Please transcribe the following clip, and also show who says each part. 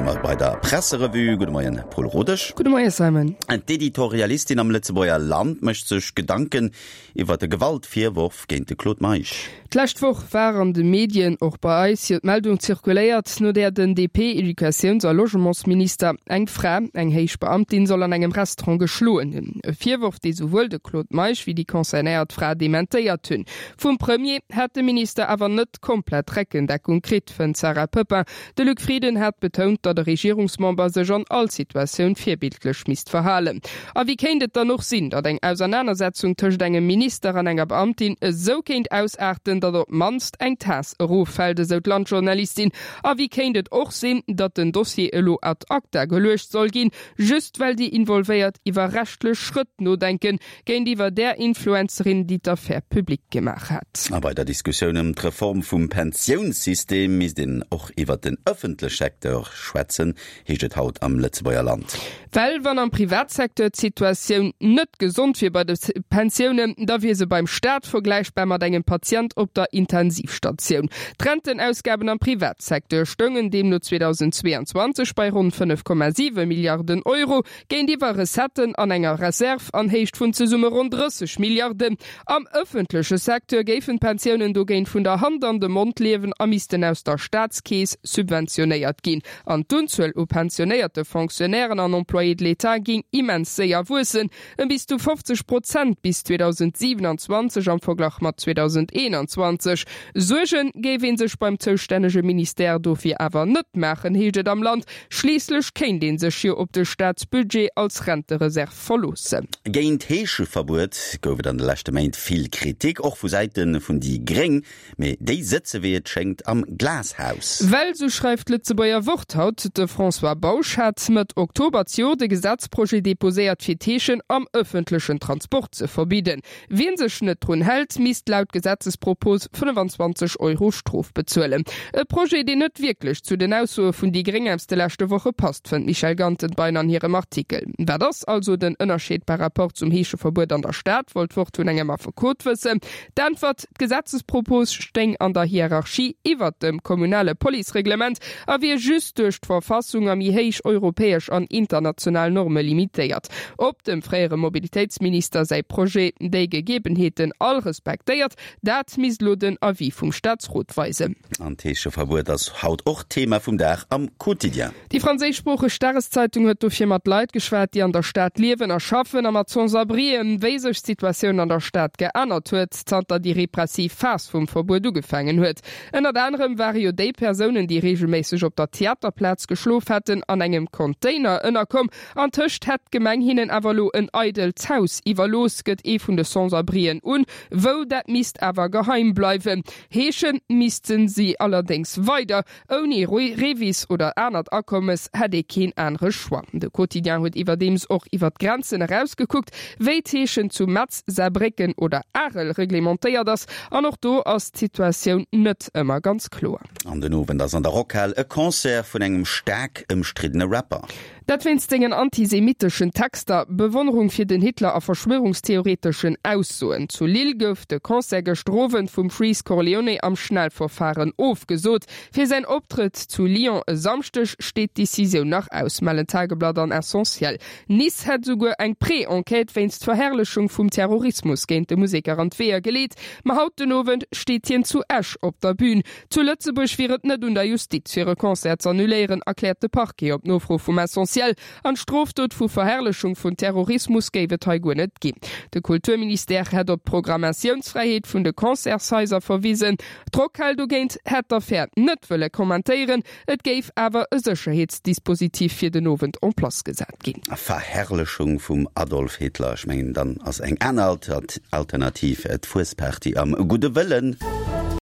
Speaker 1: mer bei der Presserevue. Gudde Moien, Paul Rodesch.
Speaker 2: Gudde Moie, Simon.
Speaker 1: D'Editorialistin am Lëtzebuerger Land mécht sech Gedanken iwwer de Gewaltvirworf géint de Claude Meisch.
Speaker 2: D'lescht Woch war an de Medien, och bei eis, jo d'Meldung zirkuléiert, no där den DP-Educatiouns a Logementsminister eng Fra, eng héich Beamtin, soll an engem Restaurant geschloen hunn. E Virworf, dee souwuel de Claude Meisch wéi déi concernéiert Fra dementéiert hunn. Vum Premier hätt de Minister awer net komplett Reckendeckung kritt, fënnt d'Sarah Poepping. De Luc Frieden hat betount, datt e Regierungsmember sech an all Situatioun virbildlech misst verhalen. A wéi kéint et dann och sinn, datt eng Ausernanersetzung tëscht engem Minister an enger Beamtin esou kéint ausaarten, datt op d'mannst eng Taass eroffält, esou d'Landjournalistin? A wéi kéint et och sinn, datt den Dossier elo ad acta geluecht soll ginn, just well déi Involvéiert iwwer rechtlech Schrëtt nodenken, Géintiwwer där Influencerin, déi d'Affär public gemaach hat.
Speaker 1: A bei der Diskussioun ëm d'Reform vum Pensiounssystem misst een och iwwert den ëffentlech Secteur schwätzen, heescht et haut am Lëtzebuerger Land.
Speaker 2: Well wann am Privatsecteur d'Situatioun net gesond wier bei de Pensiounen, da wier se beim Staat vergläichbar mat engem Patient op der Intensivstatioun. D'Rentenausgaben am Privatsecteur stoungen deemno 2022 bei ronn 5,7 Milliarden Euro, Géintiwwer Recetten an enger Reserve an Héicht vun zesumme ronn 30 Milliarden. Am ëffentleche Secteur géifen d'Pensiounen dogéint vun der Hand an de Mond liewen a missten aus der Staatskeess subventionéiert ginn. An d'Unzuel u pensionéierte Fonctionnairen an Employés de l'État géing immens séier wuessen, ëm bis zu 50 Prozent bis 2027 am Verglach mat 2021. Suerge géif ee sech beim zoustännege Ministère dofir awer net maachen, heescht et am Land. Schliisslech kéint ee sech jo op de Staatsbudget als Rentereserv verloossen.
Speaker 1: Géint d'Heescheverbuet gouf et an de leschte Méint vill Kritik, och vu Säite vun déi Gréng. Mee déi sëtze wéi et schéngt am Glashaus.
Speaker 2: Well, sou schreift d'Lëtzebuerger Wort haut, de François Bausch hat Mëtt Oktober d'Jor de Gesetzprojet deposéiert fir d'Heeschen am ëffentlechen Transport ze verbidden. Wien sech net drun hält, misst laut Gesetzespropos 25 Euro Strof bezuelen. E Projet, deen net wierklech zu den Aussoe vun déi Gréng aus de leschte Woche passt, fënnt d'Michèle Gantenbein an hirem Artikel. Wat ass also den Ënnerscheed par rapport zum Heescheverbuet an der Stad, wollt d'Wort vun engem Affekot wëssen. D'Äntwert, D'Gesetzespropos stéing an der Hierarchie iwwert dem kommunale Policereglement a wier just duerch d'Verfassung a méi héich europäesch an international Norme limitéiert. Ob dem fréiere Mobilitéitsminister säi Projet déi Gegebenheeten all respektéiert, dat misst elo den Avis vum Staatsrot weisen.
Speaker 1: An d'Heescheverbuet ass haut och Thema vum Dag am Quotidien.
Speaker 2: Déi franséischsproocheg Dageszeitung huet dofir mat Leit geschwat, déi an der Stad liewen a schaffen, a mat Sans-abrien, wéi sech d'Situatioun an der Stad geännert huet, zanter déi repressiv Phas vum Verbuet ugefaangen huet. Ënnert anerem ware jo déi Persounen, déi reegelméisseg op der Theaterplaz geschlof hätten, an engem Container ënnerkomm. Antëscht hätt d'Gemeng hinnen awer elo en eidelt Haus iwwerlooss, gëtt ee vun de Sans-abrien un. Wou, dat misst awer geheim bleiwen. Heesche misste si allerdéngs weider. Ouni REVIS oder anert Akommes hätt ee keen anere Choix. De Quotidien huet iwwerdeems och iwwer d'Grenzen eraus gekuckt, wéi d'Heeschen zu Metz, Saarbrécken oder Arel reglementéiert ass. An och do ass d'Situatioun net ëmmer ganz kloer.
Speaker 1: An den Owend ass an der Rockhal e Concert vun engem staark ëmstriddene Rapper.
Speaker 2: Dat wéinst sengen antisemitteschen Texter, Bewonnerung fir den Hitler a verschwörungstheoreteschen Aussoen. Zu Lille gouf de Concert gëschter Owend vum Freeze Corleone am Schnellverfaren ofgesot. Fir säin Optrëtt zu Lyon e Samschdeg steet d'Decisioun nach aus, mellen Tageblatt an Essentiel. Nice hätt esouguer eng Pré-Enquête wéinst Verherrlechung vum Terrorismus géint de Museker an d'Weeër geleet. Ma haut den Owend steet hien zu Esch op der Bün. Zu Lëtzebuerg wier et net un der Justiz, fir e Concert z'annuléieren, erkläert de Parquet op Nofro vum Essentiel. An d'Strofdot vu Verherrlechung vun Terrorismus géif et hei guer net ginn. De Kulturministère hätt op d'Programmatiounsfräiheet vun de Concertshaiser verwisen. D'Rockhal dogéint hätt d'Affär net wëlle kommentéieren. Et géif awer e Sécherheetsdispositif fir den Owend en place gesat ginn.
Speaker 1: Verherrlechung vum Adolf Hitler, ech mengen dann ass eng aner Alternativ d'Fuesparty am gudde Wëllen.